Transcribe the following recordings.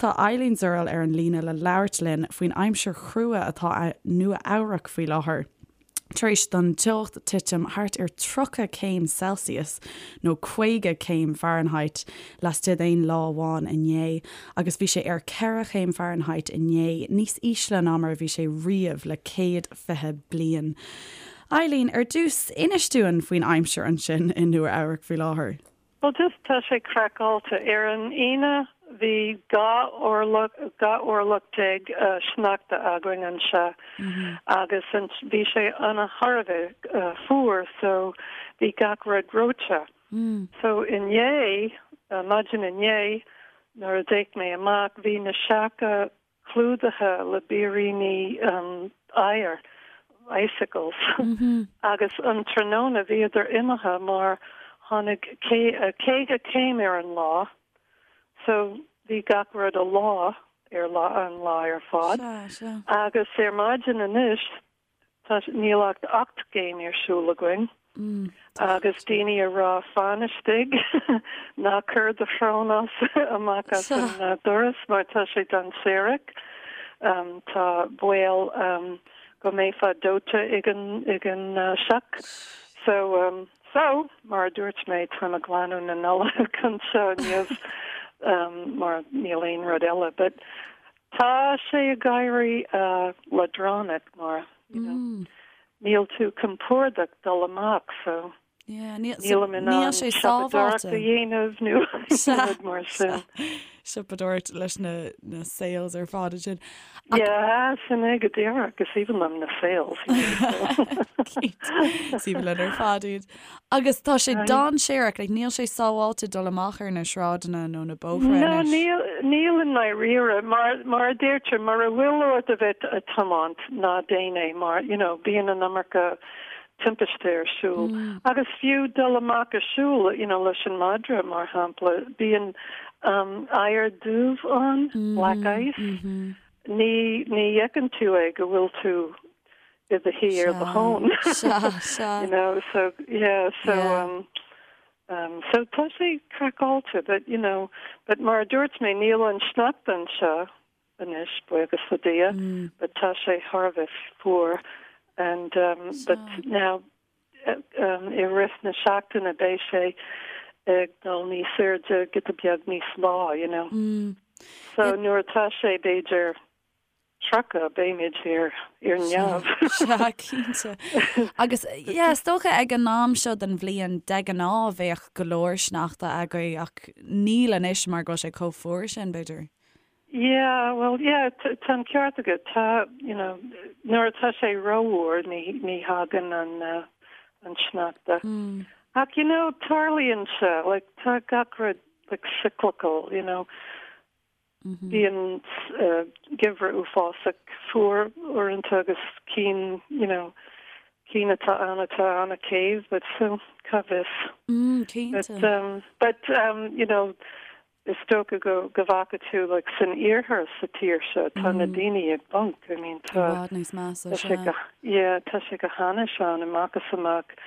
tá Eileen Zurell ar an líne le labhairt linn faoin aimsir chrua atá i Nua Eabhrac faoi láthair. Tar éis don teocht titim thart ar 30 céim Celsius, nó 50 céim Fahrenheit, laistigh d'aon lá amháin inné, agus bhí sé ar 4 chéim Fahrenheit inné, níos ísle ná mar a bhí sé riamh le 120 bliain. Eileen, ar dtús, inis dúinn faoin aimsir ansin i Nua Eabhrac faoi láthair. Bhuel just tá sé craiceáilte. Ar an Aoine bhí 12 orlach, 12 orlach sneachta againn anseo agus bhí sé ana thar a bheith fuar so bhí gach rud reoite. So inné, maidin inné nuair a d'fhéach mé amach bhí na seaca clúdaithe le biríní oighir, icicles, agus an tráthnóna bhíodar imithe mar tháinig 50 céim ar an lá so bhí gach rud ag leá ar lá an lá ar fad. Agus ar maidin anois Tá, níl ach 8 gcéim ar siúl againn agus daoine ag rá fan istigh, ná cuir do shrón as, amach as an doras mar tá sé dainséarach. Tá baol go mbeifeá dóite ag an, ag an sioc. So, so, mar a dúirt mé, táim ag glanadh na Nollag anseo inniu mar níl aon rud eile. But Tá sé ag éirí leadránach mar, you know, níl tú compordach dul amach so nílim in ann siopadóireacht a dhéanamh nó rud mar sin. Siopadóireacht leis na sales ar fad ansin. Yeah, sin é go díreach, is aoibhinn liom na sales. Cinnte, is aoibhinn linn ar fad iad. Agus tá sé dainséarach, like níl sé sábháilte dul amach ar na sráideanna nó na bóithre No, anois. níl, níl i ndáiríre. Mar, mar a deirtear, mura bhfuil ort a bheith ag tiomáint, ná déan é mar, you know, bíonn an iomarca timpiste ar siúl. Agus fiú dul amach ag siúl, you know, leis an madra, mar shampla, bíonn um, oighear dubh ann, black ice. Ní, ní fheiceann tú é go bhfuil tú i do shuí ar do thóin. Sea, sea. You know, so, yeah, so, Yeah. um, um, so tá sé craiceáilte, but, you know, but mar a dúirt mé, níl an sneachta anseo anois, buíochas le Dia, but tá sé thar a bheith fuar and, um, but now, um, i rith na seachtaine beidh sé ag dul níos airde, giota beag níos lá, you know. So nuair atá sé, b'fhéidir, 30, beimid ar ar neamh. Sea, cinnte. Agus, yeah, is dócha ag an am seo den bhliain, de ghnáth, bheadh go leor sneachta agaibh ach níl anois mar go bhfuil sé chomh fuar sin, b'fhéidir. Yeah, well, yeah, tá an ceart agat. Tá, you know, nuair atá sé rófhuar, ní, ní thagann an, an sneachta. Ach, you know, tarlaíonn sé, like, tá gach rud, like, cyclical, you know. Bíonn geimhreadh uafásach fuar uaireanta agus cinn, you know, cinn atá ann atá an-séimh, but so, cá bhfios. Cinnte. But, um, but, um, you know, is dócha go, go bhfaca tú, like, san iarthar sa tír seo, tá na daoine ag bponc, I mean, I tá, bhfad níos measa, tá sé sea. go, yeah, tá sé go hainnis ann, amach is amach.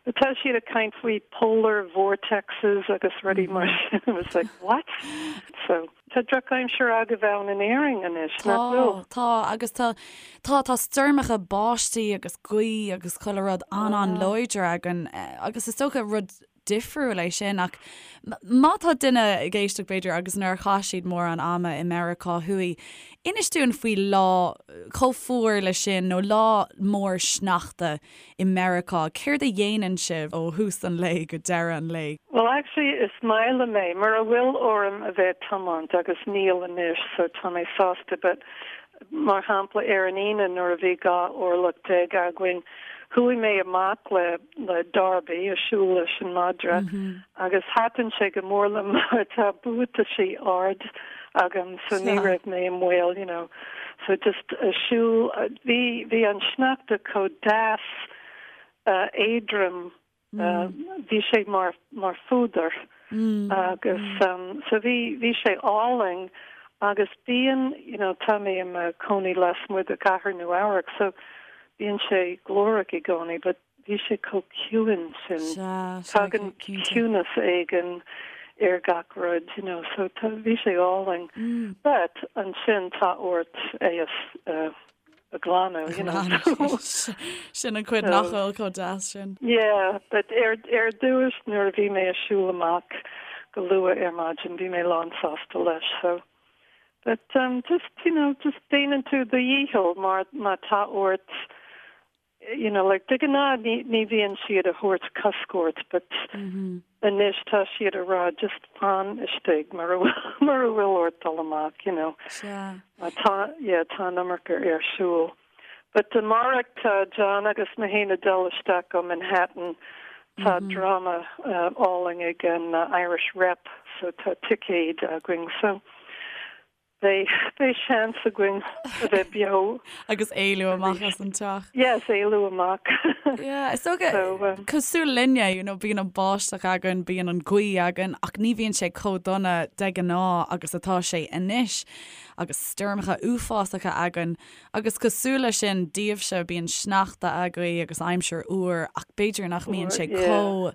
But tá siad ag caint faoi polar vortexes agus rudaí mar sin, I was like, what? So, tá drochaimsir agaibh ann in Éirinn anois, nach bhfuil? Tá, tá, agus tá, tá, tá stoirmeacha báistí agus gaoth agus chuile rud an-an-láidir againn, agus is dócha rud difriúil é sin ach má tá duine ag éisteacht b'fhéidir agus nár chaith siad mórán ama i Meiriceá Thuaidh, inis dúinn faoi lá chomh fuar le sin nó lá mór sneachta i Meiriceá, céard a dhéanann sibh ó thús an lae go deireadh an lae? Well actually is maith liom é, mura bhfuil orm a bheith ag tiomáint agus níl anois so tá mé sásta but mar shampla ar an Aoine nuair a bhí 12 orlach againn chuaigh mé amach le le Darby ag siúl leis an madra agus thaitin sé go mór liom mar tá buataisí ard agam so ní raibh mé i mbaol you know so just ag siúl bhí bhí an sneachta chomh deas éadrom bhí sé mar mar phúdar agus so bhí bhí sé álainn agus bíonn you know tá mé i mo chónaí lasmuigh de chathair Nua Eabhrac so bíonn sé glórach i gcónaí but bhí sé chomh ciúin sin. Sea, sea, Tagann cinnte. ciúnas éigin. ar gach rud, you know, so tá, bhí sé álainn. But ansin tá ort é a, a ghlanadh, you know. Sin an chuid nach bhfuil chomh deas sin. Yeah, but ar, ar dtús nuair a bhí mé ag siúl amach go luath ar maidin bhí mé lán sásta leis, so. But um, just, you know, just déanann tú do dhícheall mar má tá ort you know, like de ghnáth ní, ní bhíonn siad a thabhairt cosc ort but anois tá siad a rá just fan istigh mura bhfuil, mura bhfuil ort dul amach, you know. Sea. Má tá, yeah, tá an iomarca ar siúl. But amárach tá John agus mé féin ag dul isteach go Manhattan, tá dráma álainn ag an Irish Rep so tá ticéid againn so Beidh, beidh seans againn a bheith beo. Agus éalú amach as an teach. Yes, éalú amach. Yeah, is dócha, So, um, cosúil linne, you know, bíonn an báisteach againn, bíonn an ghaoth againn, ach ní bhíonn sé chomh dona de ghnáth agus atá sé anois, agus stoirmeacha uafásacha againn. Agus cosúil leis sin, daoibhse, bíonn sneachta agaibh agus aimsir fhuar, ach b'fhéidir nach mbíonn sé yeah. chomh,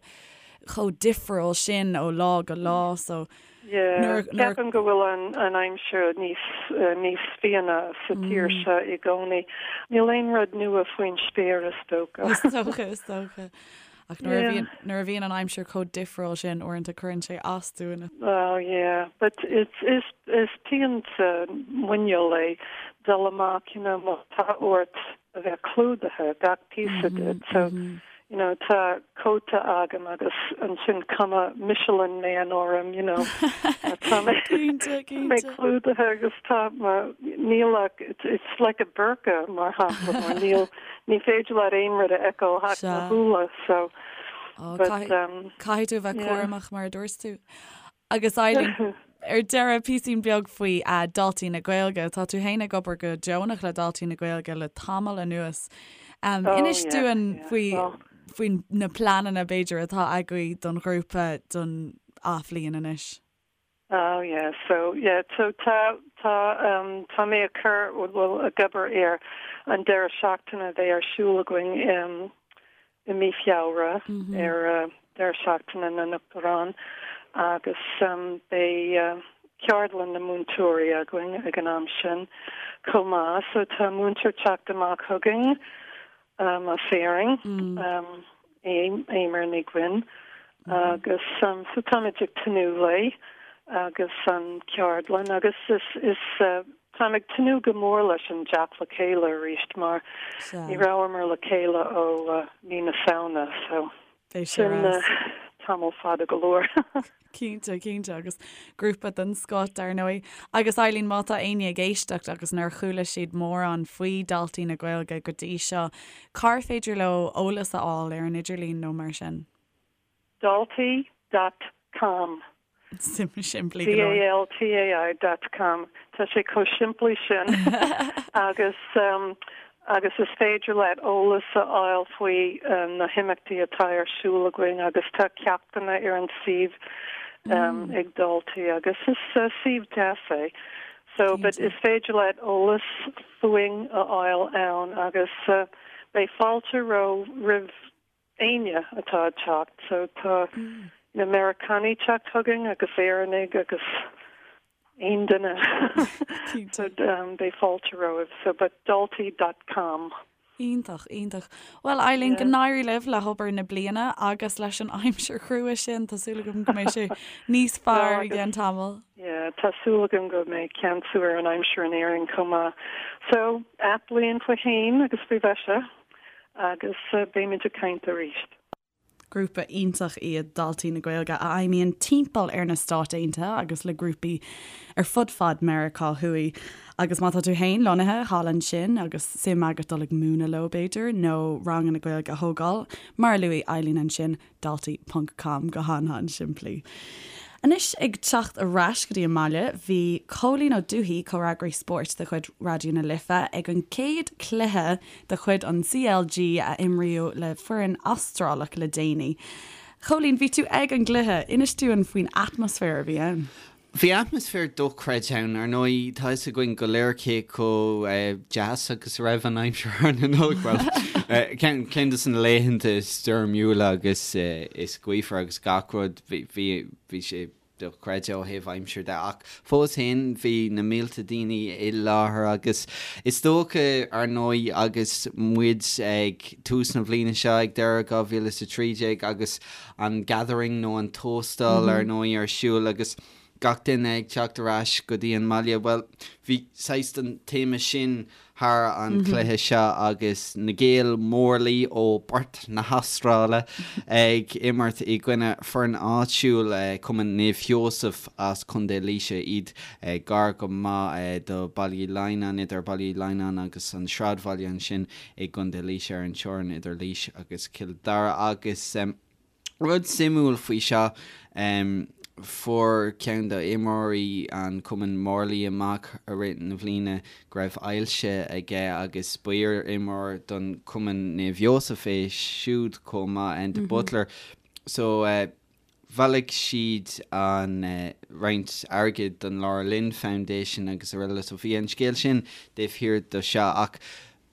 chomh difriúil sin ó lá go lá, so, Yeah, ceapaim go bhfuil an an aimsir níos níos fiáine sa tír seo i gcónaí. Níl aon rud nua faoin spéir is dócha. Is dócha, is dócha. Ach nuair a bhíonn nuair a bhíonn an aimsir chomh difriúil sin uaireanta cuireann sé as dúinn. Well yeah, but it's is is pian sa muineál é dul amach, you know, má tá ort a bheith clúdaithe, gach píosa díot. So, you know, tá cóta agam agus ansin cuma Michelin Man orm, you know. Tá mé Cinnte, mé cinnte. clúdaithe agus tá mo, níl ach, it's, it's like a burqa mar shampla, mar níl, ní féidir leat aon rud a fheiceáil ach mo Sea. shúile, so, Ó, but, caithfidh, um, caithfidh tú a bheith yeah. cúramach mar a dúirt tú. Agus Eileen, ar deireadh, píosín beag faoi Daltaí na Gaeilge. Tá tú féin ag obair go deonach le Daltaí na Gaeilge le tamall anuas. Oh, Inis yeah, dúinn yeah. faoi Well, faoi na pleananna b'fhéidir atá agaibh don ghrúpa don athbhliain anois. Oh yeah, so yeah, so tá tá um, tá mé ag cur well ag obair ar an deireadh seachtaine a bheidh ar siúl againn um, i mí Feabhra ar Deireadh Seachtaine na nUachtarán agus beidh ceardlann na múinteoirí againn ag an am sin chomh maith. So tá múinteoir teacht amach chugainn as Éirinn, Eimear Ní Dhuinn, agus so táimid ag tnúth léi agus an ceardlann agus is is Táim ag tnúth go mór leis an dteacht le chéile arís mar ní rabhamar le chéile ó mí na Samhna so sin tamall fada go leor. Cinnte, cinnte, agus grúpa den scoth dar ndóigh. Agus Eileen, má tá éinne ag éisteacht agus nár chuala siad mórán faoi Daltaí na Gaeilge go dtí seo, cár féidir leo eolas a fháil ar an idirlíon nó mar sin? Daltaí dot com. Simplí go leor. D-A-L-T-A-I dot com. Tá sé chomh simplí sin agus agus is féidir leat eolas a fháil faoi na himeachtaí atá ar siúl againn agus tá ceachtanna ar an suíomh ag Daltaí agus is suíomh deas é. So but is féidir leat eolas fúinn a fháil ann agus beidh fáilte roimh éinne atá ag teacht. So tá na Meiriceánaigh teacht chugainn agus Éireannaigh agus aon duine. So beidh fáilte romhaibh. So but daltaí dot com. Iontach, iontach. Bhuel Eileen, go n-éirí libh le hobair na bliana agus leis an aimsir chrua sin. Tá súil agam go mbeidh sé níos fearr i gceann tamaill. Yeah, tá súil agam go mbeidh ceansú ar an aimsir in Éirinn chomh maith. So, athbhliain faoi shéan agus faoi mhaise. Agus beimid ag caint arís. Grúpa iontach iad Daltaí na Gaeilge a fheidhmíonn timpeall ar na Stáit Aontaithe agus le grúpaí ar fud fad Meiriceá Thuaidh. Agus má tá tú féin lonnaithe thall ansin agus suim agat dul ag múineadh leo b'fhéidir, nó ranganna Gaeilge a thógáil, mar a luaigh Eileen ansin, daltaí ponc com go han-han-simplí. Anois ag teacht ar ais go dtí an mbaile, bhí Cóilín Ó Dubhthaigh, comhfhreagraí spóirt de chuid Raidió na Life, ag an gcéad chluiche de chuid an CLG a imríodh le foireann Astrálach le déanaí. Chóilín, bhí tú ag an gcluiche, inis dúinn faoin atmaisféar a bhí ann. Bhí atmaisféar dochreidte ann. Ar ndóigh, tá fhios againn go léir cé chomh deas agus a raibh an aimsir thar na Nollag. Bhuel, ceann de na laethanta is stoirmiúla agus is gaofar agus gach rud, bhí, bhí, bhí sé. dochreidte ó thaobh aimsir de ach fós féin bhí na mílte daoine i láthair agus is dócha ar ndóigh agus muid ag tús na bliana seo ag deireadh 2013 agus an Gathering nó an Tóstal ar ndóigh ar siúl agus gach duine ag teacht ar ais go dtí an mbaile, bhuel, bhí saghas den téama sin thar an chluiche seo agus na Gaeil Morley ó Perth na hAstráile ag imirt i gcoinne foireann áitiúil, Cumann Naomh Sheosamh as Contae Laoise, iad gar go maith do Baile Uí Lionnáin, idir Baile Uí Lionnáin agus an sráidbhaile ansin i gContae Laoise ar an teorainn idir Laois agus Cill Dara agus. Rud suimiúil faoi seo, fuair ceann d'imreoirí an chumainn Morley amach i rith na bliana go raibh ailse aige agus ba iar-imreoir don chumann Naomh Sheosamh é siúd chomh maith, Enda Butler. So bhailigh siad an roinnt airgid don Laura Lynn Foundation agus araile so bhí an scéal sin taobh thiar de seo ach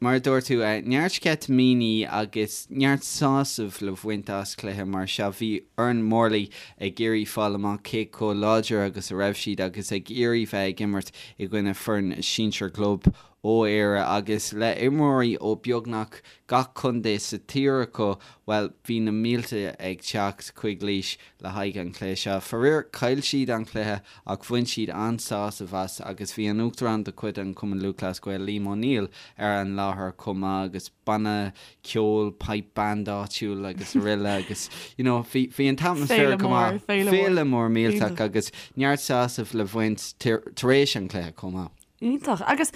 Mar a dúirt tú, neart sceitimíní agus neart sásaimh le bhaint as cluiche mar seo. Bhí foireann Morley ag iarraidh fáil amach cé chomh láidir agus a raibh siad agus ag iarraidh bheith ag imirt i gcoinne foireann sinsir club ó Éire agus le imreoirí ó beagnach gach contae sa tír acu, bhuel, bhí na mílte ag teacht chuig Laois le haghaidh an chluiche seo. Faraor, chaill siad an cluiche ach bhain siad an-sásamh as agus bhí an Uachtarán de chuid an Chumann Lúthchleas Gael, Liam O'Neill, ar an láthair chomh maith agus banna ceoil, pipe band áitiúil agus araile agus you know bhí bhí an t-atmaisféar Féile go mór, maith. féile mór. Féile mór millteach Iontach. agus neart sásaimh le bhaint tar éis an chluiche chomh maith. Iontach. Agus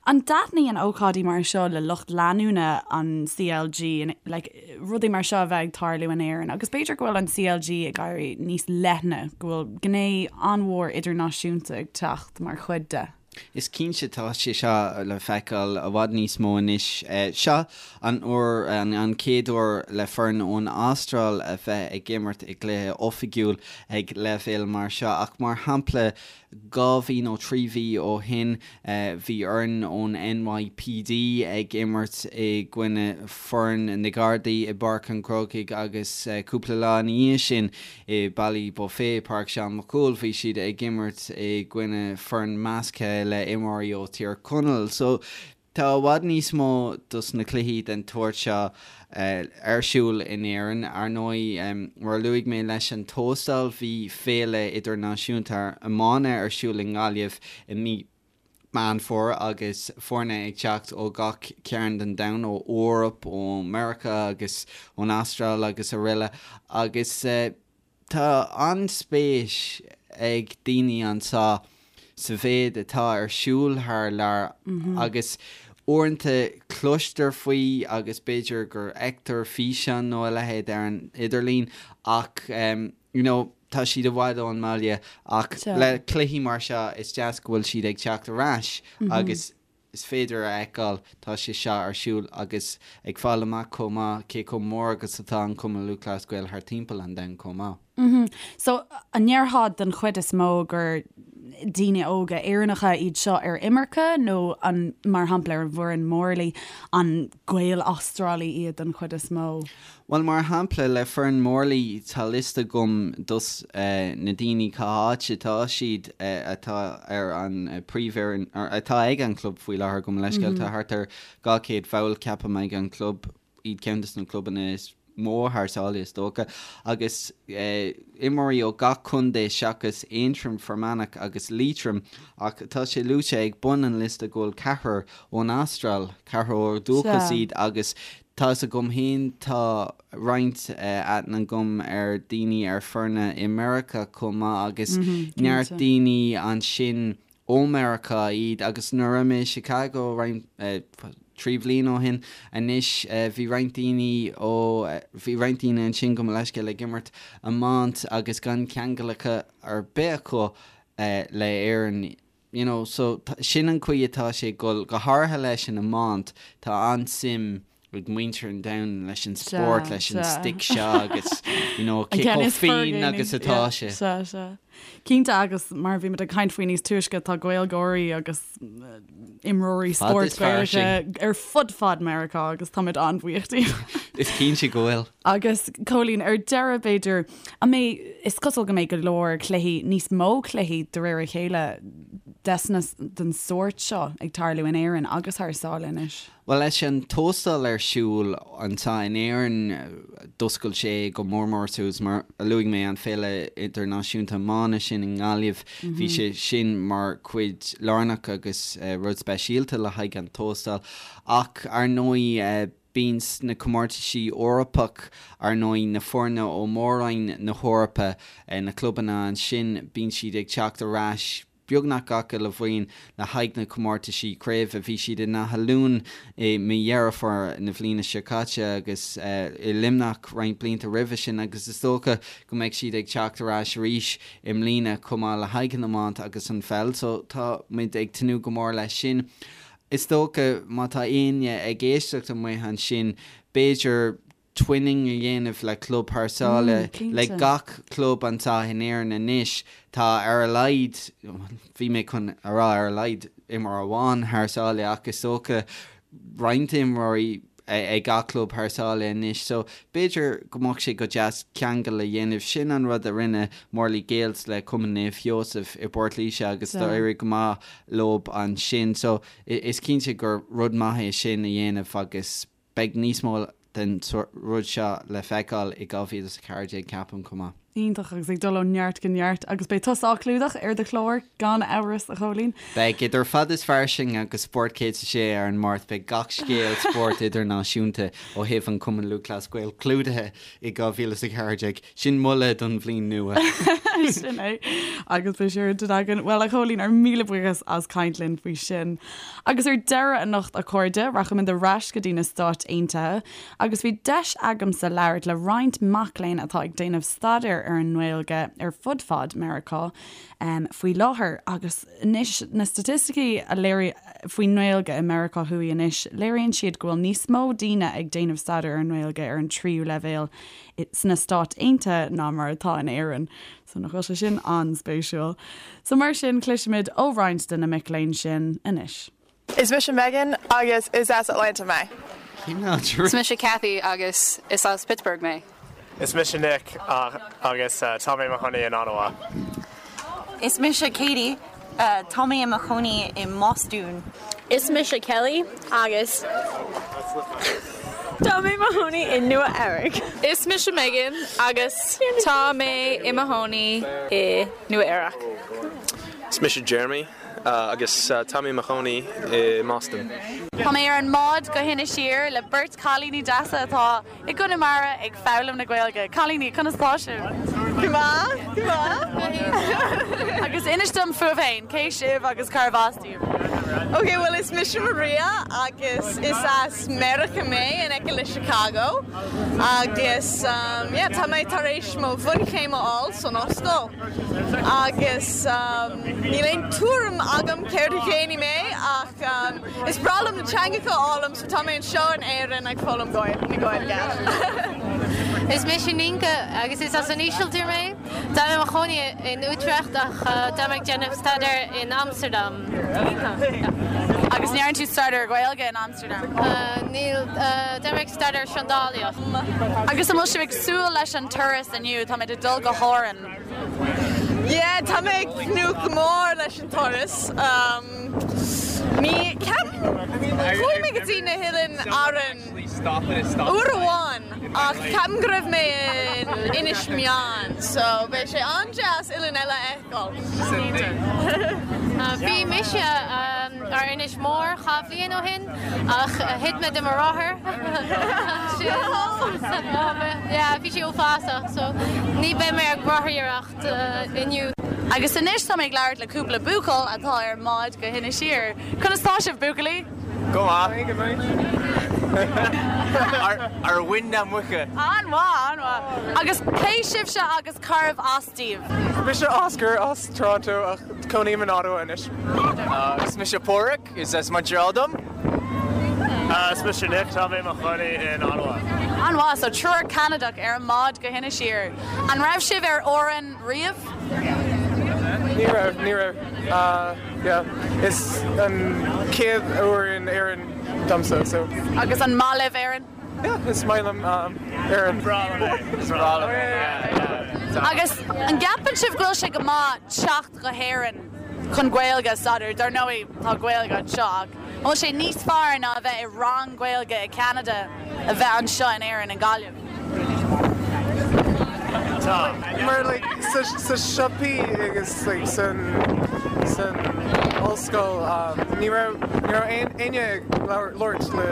an dtaitníonn ócáidí mar seo le lucht leanúna an CLG, like, rudaí mar seo a bheith ag tarlú in Éirinn? Agus b'fhéidir go bhfuil an CLG ag éirí níos leithne, go bhfuil gné an-mhór idirnáisiúnta ag teacht mar chuid de? Is cinnte tá sé seo le feiceáil i bhfad níos mó anois. Seo an uair, an chéad uair le foireann ón Astráil a bheith ag imirt i gcluiche oifigiúil ag leibhéal mar seo ach mar shampla 2 mhí nó 3 mhí ó shin bhí foireann ón NYPD ag imirt i gcoinne foireann na Gardaí i bPáirc an Chrócaigh agus cúpla lá ina dhiaidh sin i Ballybofey, Páirc Seán Mac Cumhaill, bhí siad ag imirt i gcoinne foireann measctha le imreoirí ó Thír Chonaill. So Tá i bhfad níos mó dos na cluichí den tsórt seo ar siúl in Éirinn. Ar ndóigh, mar a luaigh mé leis an Tóstal, bhí féile idirnáisiúnta iomána ar siúl i nGaillimh i mí Meán Fómhair agus foirne ag teacht ó gach cearn den domhan, ó Eoraip, ó Meiriceá agus ón Astráil agus araile agus. Tá an-spéis ag daoine anseo sa mhéid atá ar siúl thar lear agus uaireanta cloistear faoi agus b'fhéidir gur fheictear físeán nó a leithéid ar an idirlíon ach you know tá siad i bhfad ón mbaile ach le cluichí mar seo is deas go bhfuil siad ag teacht ar ais agus is féidir a fheiceáil, tá sé seo ar siúl agus ag fáil amach chomh maith cé chomh mór agus atá an Cumann Lúthchleas Gael thar timpeall an domhain chomh maith. So, an ndéarfá den chuid is mó gur daoine óga Éireannacha iad seo ar imirce nó an, mar shampla ar an bhfoireann Morley, an Gaeil Astrálaigh iad den chuid is mó? Bhuel, mar shampla, le foireann Morley, tá liosta agam dos na daoine cá háit atá siad atá ar an príomhfhoireann, atá ag an club faoi láthair, gabh mo leithscéal. Tá thart ar 200 bhall, ceapaim, ag an club, iad ceann dos na clubanna is mó thar sáile, is dócha, agus imreoirí ó gach contae seachas Aontroim, Fear Manach agus Liatroim, ach tá sé luaite ag bun an liosta go bhfuil ceathrar ón Astráil, ceathrar ó dhúchas iad agus Tá 'fhios agam féin, tá roinnt aithne agam ar daoine ar foirne i Meiriceá chomh maith agus neart daoine ansin ó Meiriceá iad agus nuair a raibh mé i Chicago roinnt, 3 bhliain ó shin anois, bhí roinnt daoine ó, bhí roinnt daoine ansin gabh mo leithscéal ag imirt iomáint agus gan ceangal acu ar bith acu le Éirinn. You know, so sin an chaoi atá sé ag dul, go háirithe leis an iomáint, tá an-suim. Ag muintir an domhain leis an spórt, leis an stick seo agus you know cé chomh fiáin agus atá sé. Sea, sea. Cinnte agus mar a bhí muid ag caint faoi níos túisce tá Gaeilgeoirí agus imreoirí spóirt Gaeilge ar fud fad Meiriceá agus táimid an-bhuíoch díobh. Is cinnte go bhfuil. Agus Cóilín, ar deireadh b'fhéidir, an mbeidh, is cosúil go mbeidh go leor cluichí, níos mó cluichí de réir a chéile desna, den sórt seo ag tarlú in Éirinn agus thar sáile anois. Bhuel, leis an Tóstal ar siúl anseo in Éirinn, d'oscail sé go mór mór suas, mar a luaigh mé, an Féile Idirnáisiúnta Iomána sin i nGaillimh, bhí sé sin mar chuid lárnach agus rud speisialta le haghaidh an Tóstal. Ach, ar ndóigh, bíonn na comórtaisí Eorpach, ar ndóigh, na foirne ó Mhór-Roinn na hEorpa, na clubanna ansin, bíonn siad ag teacht ar ais, beagnach gach uile bhliain le haghaidh na comórtaisí craoibhe. Bhí siad in Áth Luain i mí Dheireadh Fómhair na bhliana seo caite agus i Luimneach roinnt blianta roimhe sin agus is dócha go mbeidh siad ag teacht ar ais arís i mbliana chomh maith le haghaidh an iomáint agus an pheil so tá muid ag tnúth go mór leis sin. Is dócha má tá éinne ag éisteacht amuigh ansin b'fhéidir twinning a dhéanamh le club thar sáile, le gach club anseo in Éirinn anois, tá ar a laghad, bhí mé chun a rá ar a laghad imreoir amháin thar sáile ach is dócha roinnt imreoirí ag gach club thar sáile anois so b'fhéidir go mbeadh sé go deas ceangal a dhéanamh. Sin an rud a rinne Morley Gaels le Cumann Naomh Sheosaimh i bPort Laoise agus d'éirigh go maith leob ansin so is cinnte gur rud maith é sin a dhéanamh agus Beidh níos mó den rud seo le feiceáil i 2014 ceapaim chomh maith. Iontach, agus ag dul ó neart go neart. Agus beidh tusa á clúdach ar do chlár, gan amhras, a Chóilín. Beidh, idir Fad is Fairsing agus Spórt 106 ar an Máirt, beidh gach scéal spóirt idirnáisiúnta ó thaobh an Chumann Lúthchleas Gael clúdaithe i 2014. Sin moladh don bhliain nua. Sin é. Agus beidh sé ar intinn againn. Bhuel, a Chóilín, ár míle buíochas as caint linn faoi sin. Agus ar deireadh anocht, a chairde, rachaimid ar ais go dtí na Stáit Aontaithe agus bhí deis agamsa labhairt le roinnt mac léinn atá ag déanamh staidéir ar an nGaeilge ar fud fad Meiriceá faoi láthair. Agus anois, na staitisticí a léirigh faoin nGaeilge i Meiriceá Thuaidh anois, léiríonn siad go bhfuil níos mó daoine ag déanamh staidéir ar an nGaeilge ar an tríú leibhéal sna Stáit Aontaithe ná mar atá in Éirinn. So nach bhfuil sé sin an-spéisiúil. So mar sin, cloisfimid ó roinnt de na mic léinn sin anois. Is mise Megan agus is as Atlanta mé. Is mise Cathy agus is as Pittsburgh mé. Is mise Nick agus tá mé i mo chónaí in Ottawa. Is mise Katie Tá mé i mo chónaí i mBostún. Is mise Kelly agus tá mé i mo chónaí i Nua Eabhrac. Is mise Megan agus tá mé i mo chónaí i Nua Eabhrac. Is mise Jeremy agus tá mé i mo chónaí i mBoston. Tá mé ar an mbád go hInis Oírr le beirt cailíní deasa atá I gConamara ag foghlaim na Gaeilge. Cailíní, conas tá sibh? Go maith, go maith. Agus inis dom fúibh féin, cé sibh agus cárb as daoibh? Ok, bhuel is mise Maria agus is as Meiriceá mé, in aice le Chicago. Agus yeah, tá mé tar éis mo bhunchéim a fháil san ollscoil. Agus níl aon tuairim agam céard a dhéanfaidh mé ach Is breá liom na teangacha a fhoghlaim so tá mé anseo in Éirinn ag foghlaim na Gaeilge. Is mise Nienke agus is as an Ísiltír mé. Tá mé i mo chónaí in Utrecht ach tá mé ag déanamh staidéir in Amsterdam. Agus an ndearna tú staidéar Gaeilge in Amsterdam? Níl, tá mé ag staidéar seandálaíocht. Agus an bhfuil sibh ag súil leis an turas inniu? Táimid ag dul go hÁrainn. Yeah, tá mé ag tnúth go mór leis an turas. Ní ceapaim, chuaigh mé go dtí na hOileáin Árann uair amháin ach ceapaim go raibh mé in Inis Meáin so beidh sé an-deas oileán eile a fheiceáil. Bhí mise ar Inis Mór 2 bhliain ó shin ach thit mé de mo rothar ansin. Yeah, bhí sé uafásach so ní beidh mé ag rothaíocht. inniu. Agus anois tá mé ag labhairt le cúpla buachaill atá ar an mbád go hInis Oírr. Conas tá sibh, buachaillí? Go maith. Ar mhuin na muice. An-mhaith, an-mhaith. Agus cé sibhse agus cárbh as daoibh? Mise Oscar as Toronto ach cónaím in Ottawa anois. Is mise Pádraig, is as Montreal dom. Is mise Nick, tá mé i mo chónaí in Ottawa. An-mhaith, so triúr Ceanadach ar an mbád go hInis Oírr. An raibh sibh ar Árainn riamh? Ní raibh, ní raibh. Yeah, is an chéad uair in Éirinn domsa, so. Agus an maith libh Éirinn? Yeah, is maith liom Éirinn. Breá liom é. Is breá liom é, yeah, yeah. Agus an gceapann sibh go bhfuil sé go maith teacht go hÉirinn chun Gaeilge a staidéar? Dar ndóigh, tá Gaeilge anseo ach an bhfuil sé níos fearr ná a bheith i rang Gaeilge i Ceanada a bheith anseo in Éirinn, i nGaillimh? Tá. Mar like sa sa siopaí agus like san san ollscoil um ní raibh ní raibh aon éinne ag labhairt le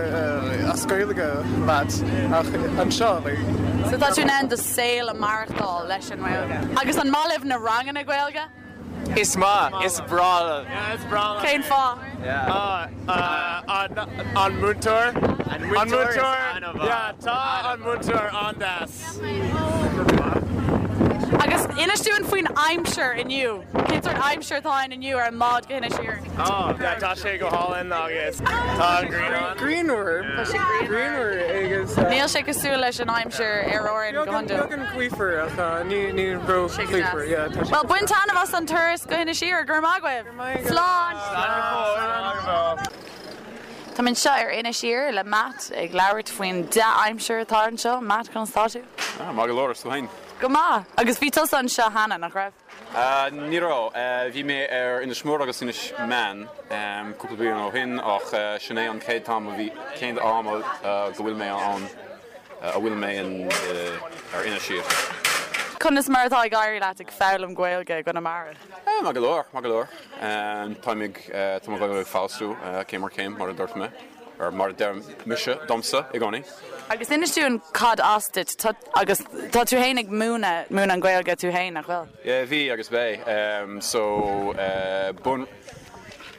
as Gaeilge leat ach anseo like. So tá tú in ann do saol a maireachtáil leis an nGaeilge. Agus an maith libh na ranganna Gaeilge? Is maith, is breá liom. Yeah, is breá liom. Cén fáth? An múinteoir. An múinteoir. Yeah, tá an múinteoir an-deas. Agus inis dúinn faoin aimsir inniu. Cén sórt aimsir atá ann inniu ar an mbád go hInis Oírr? Oh, yeah, tá sé go hálainn agus tá an ghrian ann. Grianmhar. Tá sé grianmhar. Grianmhar agus. Níl sé cosúil leis an aimsir ar Árainn go hiondúil. Beagán gaofar ach ní ní ró-ghaofar. Yeah, tá sé. Bhuel, bain taitneamh as an turas go hInis Oírr. Go raibh maith agaibh. Slán! Slán go fóill. Táim anseo ar Inis Oírr le Matt ag labhairt faoin dea-aimsir atá anseo. Matt, conas tá tú? Ah, maith go leor, is tú féin? Go maith! Agus bhí tusa anseo cheana, nach raibh? Ní raibh. Bhí mé ar Inis Mór agus Inis Meáin cúpla bliain ó shin ach sin é an chéad t-am a bhí, chéad am go bhfuil mé ann, a bhfuil mé in, ar Inis Oírr. Conas mar atá ag éirí leat ag foghlaim Gaeilge i gConamara? Maith go leor, maith go leor. Táim ag, tá mo Ghaeilge ag feabhsú céim ar chéim, mar a dúirt mé, or mar a deir mise domsa i gcónaí. Agus inis dúinn cad as duit, tá, agus tá tú fhéin ag múineadh, múineadh an Ghaeilge tú fhéin, nach bhfuil? Yeah, bhí agus beidh. So, bun,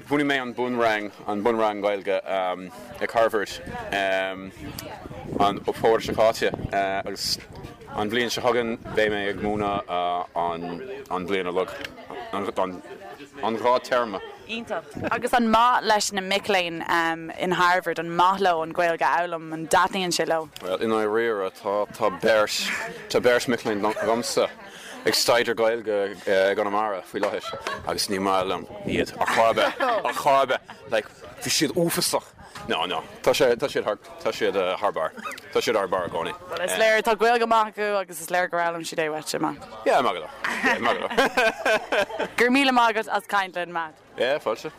bhunaigh mé an bunrang, an bunrang Gaeilge ag Harvard an fómhar seo caite agus an bhliain seo chugainn beidh mé ag múineadh an, an bhliain uilig, an, an dhá téarma. Iontach. Agus an maith leis na mic léinn in Harvard, an maith leo an Ghaeilge a fhoghlaim, an dtaitníonn sé leo? Bhuel, i ndáiríre, tá, tá beirt, tá beirt mic léinn agamsa ag staidéar Gaeilge i gConamara faoi láthair agus ní maith liom iad ar chor ar bith, ar chor ar bith. Like, bhí siad uafasach. No, no, tá sé, tá siad thar, tá siad thar barr. Tá siad thar barr i gcónaí. Bhuel, is léir, tá Gaeilge maith acu agus is léir gur fhoghlaim siad é uait, Matt. Yeah, maith go leor. Yeah, maith go leor. Go raibh míle maith agat as caint linn, Matt. Yeah, fáilte.